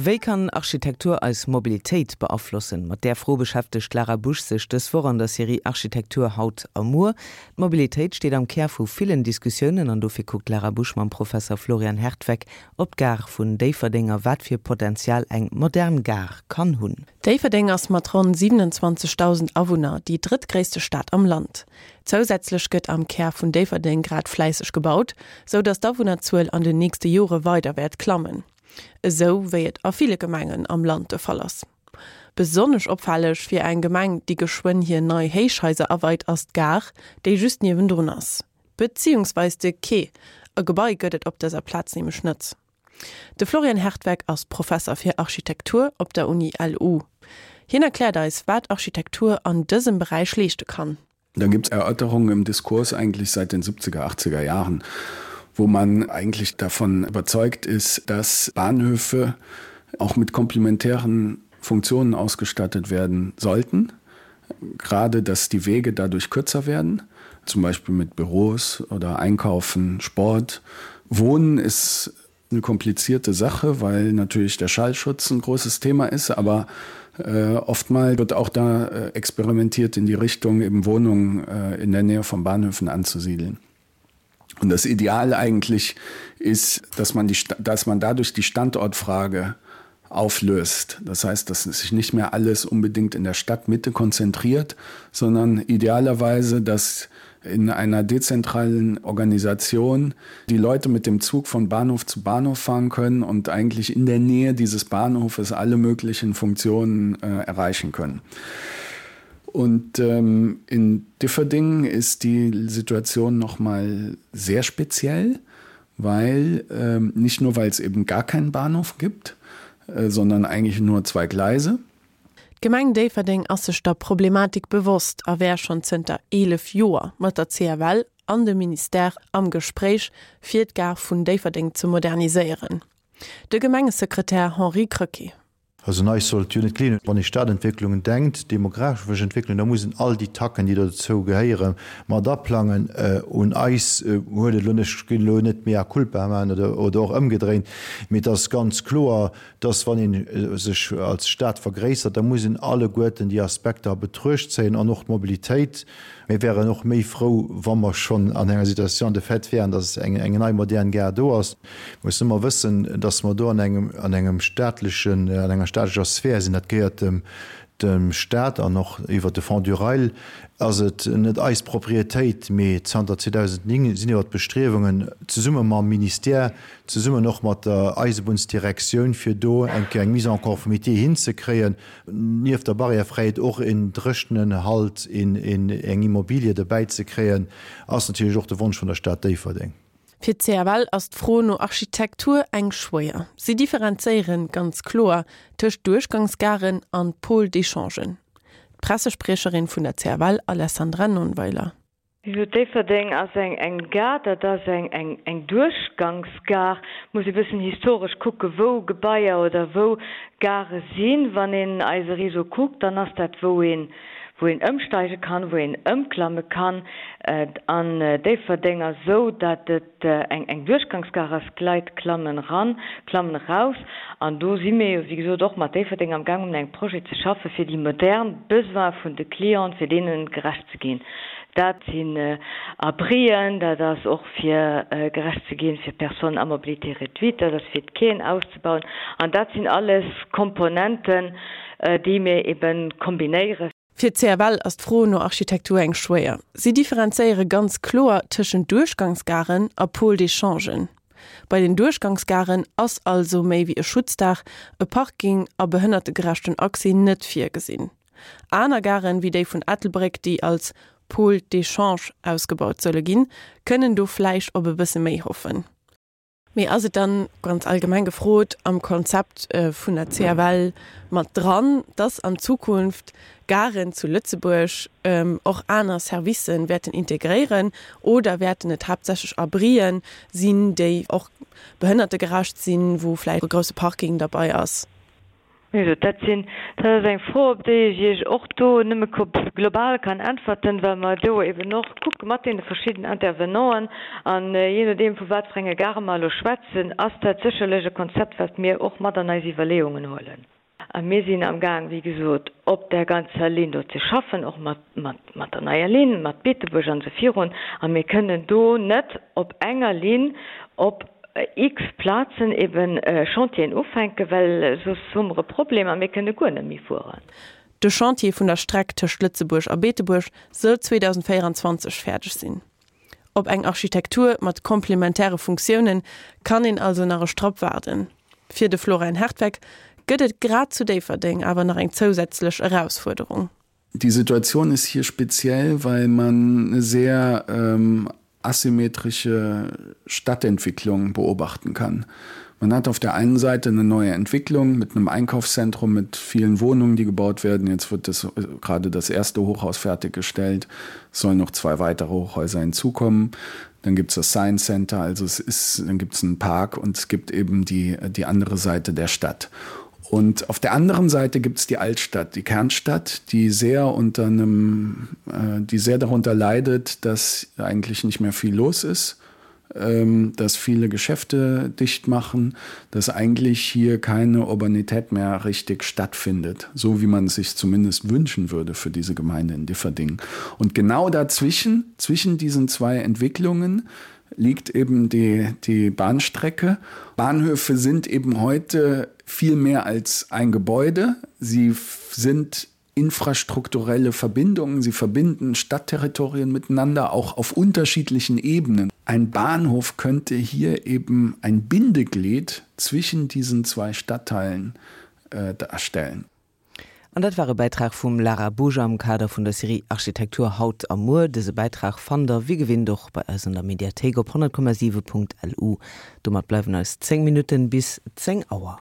Wéi kann Architektur eis Mobilitéit beaflossen? Mat där Fro beschäftegt d'Lara Busch sech dës Woch an der Serie Architektur haut a muer. D'Mobilitéit steet am Kär vu villen Diskussiounen an dofir kuckt d'Lara Busch mam Professer Florian Hertweck op d'Gare vun Déifferdeng a wat fir Potenzial eng modern Gare kann hunn. Déifferdeng ass mat ronn 27.000 Awunner déi drëttgréisste Stad am Land. Zousätzlech gëtt am Kär vun Déifferdeng grad fläisseg gebaut, sou datt d'Awunnerzuel an den nächste Jore weider wäert klammen. Esou wéi et a ville Gemengen am Land de Fall ass. Besonnesch opfälleg fir eng Gemeng, déi geschwënn hir nei Héichhaiser aweit, ass d'Gare, déi just niewendrun ass. Beziehungsweis de Quai, e Gebai gëtt et op dëser Plaz nämlech net. De Florian Hertweck ass Professer fir Architektur op der Uni LU. Hien erkläert eis, wat Architektur an dësem Beräich leeschte kann. Da gibt es Erörterungen im Diskurs eigentlich seit den 70er, 80er Jahren, wo man eigentlich davon überzeugt ist, dass Bahnhöfe auch mit komplementären Funktionen ausgestattet werden sollten. Gerade dass die Wege dadurch kürzer werden, zum Beispiel mit Büros oder Einkaufen, Sport. Wohnen ist eine komplizierte Sache, weil natürlich der Schallschutz ein großes Thema ist, aber äh, oftmal wird auch da äh, experimentiert in die Richtung eben Wohnungen äh, in der Nähe von Bahnhöfen anzusiedeln. Und das Ideal eigentlich ist, dass man, die, dass man dadurch die Standortfrage auflöst. Das heißt, dass sich nicht mehr alles unbedingt in der Stadtmitte konzentriert, sondern idealerweise, dass in einer dezentralen Organisation die Leute mit dem Zug von Bahnhof zu Bahnhof fahren können und eigentlich in der Nähe dieses Bahnhofes alle möglichen Funktionen äh, erreichen können. Und ähm, in Differdingen ist die Situation noch mal sehr speziell, weil ähm, nicht nur weil es eben gar keinen Bahnhof gibt, äh, sondern eigentlich nur zwei Gleise. D'Gemeng Déifferdeng ass sech der Problematik bewosst a wär schonn zënter 11 Joer mat der CFL an dem Ministère am Gespréich, fir d'Gare vun Déifferdeng ze moderniséieren. De Gemengesekretär Henri Krecké. Also un eis sollt jo net gleeën. Wann ee Stadentwécklungen denkt, demografesch Entwécklung, da muss een all déi Tacken, déi dozou gehéieren, mat aplangen. Un eis huet et elo, ech ginn elo net mea culpa maachen oder och ëmgedréint, mee et ass ganz kloer, dass wann ee sech als Stad vergréissert, da muss een alleguerten déi Aspekter a Betruecht zéien an och d'Mobilitéit. Mir wären och méi frou, wa mer schonn an enger Situation de fait wären, dass eng nei modern Gare do ass. Mir mussen ëmmer wëssen, dass mer do an engem, an engem staatlechen, an enger staatlecher Sphär sinn. Dat gehéiert dem, dem Stat an och iwwert de Fonds du Rail ass et net eis Propriétéit. Mee zanter 2009 sinn iwwert d'Bestriewungen, zesumme mam Ministère, zesummen och mat der Eisebunnsdirektioun, fir do eng Kéier eng Mise en conformité hinzekréien, nieft der Barrièrefräiheet och een dréchenen Halt, eng Immobilie dobäi ze kréien, ass natierlech och de Wonsch vun der Stad Déifferdeng. Fir d'CFL ass d'Fro no Architektur eng schwéier. Si differenzéieren ganz kloer tëscht Duerchgangsgaren an Pôles d'échangen. D'Pressespriecherin vun der CFL Alessandra Nonnweiler. Jo, Déifferdeng ass eng eng Gare, dat ass eng eng eng Duerchgangsgare. Muss ee bëssen historesch kucke wou Gebaier oder wou Gare sinn. Wann een eise Réseau kuckt, dann ass dat wou een wou een ëmsteige kann, wou een ëmklamme kann. An Déifferdeng ass esou, dat et eng eng Duerchgangsgare ass, d'Leit klammen eran, klammen eraus. An do si mir jo, wéi gesot, och mat Déifferdeng am Gaang, un engem Projet ze schaffen, fir déi modern Besoine vun de Clienten, fir deene gerecht ze ginn. Dat sinn Abrien, dat ass och fir gerecht ze ginn fir Personnes à mobilité réduite, dat ass fir d'Quaien auszebauen. An dat sinn alles Komponenten, déi mir ebe kombinéieren. Fir d'CFL ass d'Fro no Architektur eng schwéier. Si differenzéiere ganz kloer tëschent Duerchgangsgaren a Pôles d'échangen. Bei den Duerchgangsgaren ass also méi wéi e Schutzdaach, e Parking a behënnertegerechten Accès net virgesinn. Aner Garen, wéi déi vun Ettelbréck, déi als Pôle d'échange ausgebaut solle ginn, kënnen do vläicht op e bësse méi hoffen. Mee ass et dann, ganz allgemeng gefrot, am Konzept vun der CFL mat dran, dass an Zukunft Garen zu Lëtzebuerg och aner Servicen wäerten integréieren oder wäerten et haaptsächlech Abrien sinn, déi och behënnertegerecht sinn, wou vläicht e grousse Parking derbei ass? Wéi gesot, dat sinn, dat ass eng Fro, op déi ech Iech och do nëmme global kann äntwerten, well mer do eben och kucke mat deene verschidden Intervenanten. An jee nodeem, vu wat fir enge Gare mer elo schwätzen, ass dat sécherlech e Konzept, wat mir och mat an eis Iwwerleeungen huelen. A mir sinn amgaang, wéi gesot, op där ganzer Linn do ze schaffen, och mat, mat, mat der neier Linn, mat Beetebuerg an esou virun. A mir kënnen do net op enger Linn op x Plazen eben Chantieren ufänken, well soss hu mer e Problem a mir kënne guer net méi fueren. De Chantier vun der Streck tëscht Lëtzebuerg a Beetebuerg soll 2024 fäerdeg sinn. Op eng Architektur mat komplementäre Funktioune kann een also nach e Strapp waarden. Fir de Florian Hertweck gëtt et grad zu Déifferdeng awer nach eng zousätzlech Erausfuerderung. Die Situation ist hier speziell, weil man eine sehr ähm, asymmetrische Stadtentwicklung beobachten kann. Man hat auf der einen Seite eine neue Entwicklung mit einem Einkaufszentrum mit vielen Wohnungen, die gebaut werden. Jetzt wird das, äh, gerade das erste Hochhaus fertiggestellt, es sollen noch zwei weitere Hochhäuser hinzukommen. Dann gibt es das Science Center, also es ist, dann gibt es einen Park und es gibt eben die, die andere Seite der Stadt. Und auf der anderen Seite gibt es die Altstadt, die Kernstadt, die sehr unter einem, äh, die sehr darunter leidet, dass eigentlich nicht mehr viel los ist, ähm, dass viele Geschäfte dicht machen, dass eigentlich hier keine Urbanität mehr richtig stattfindet, so wie man es sich zumindest wünschen würde für diese Gemeinde in Differding. Und genau dazwischen, zwischen diesen zwei Entwicklungen, liegt eben die, die Bahnstrecke. Bahnhöfe sind eben heute viel mehr als ein Gebäude. Sie sind infrastrukturelle Verbindungen, sie verbinden Stadtterritorien miteinander, auch auf unterschiedlichen Ebenen. Ein Bahnhof könnte hier eben ein Bindeglied zwischen diesen zwei Stadtteilen äh, darstellen. An dat war e Bäitrag vum Lara Busch am Kader vun der Serie Architektur haut a muer. Dëse Bäitrag fannt der wéi gewinnt och bei eis an der Mediathéik op 100,7.lu. Domat bleiwen eis 10 Minutten bis 10 Auer.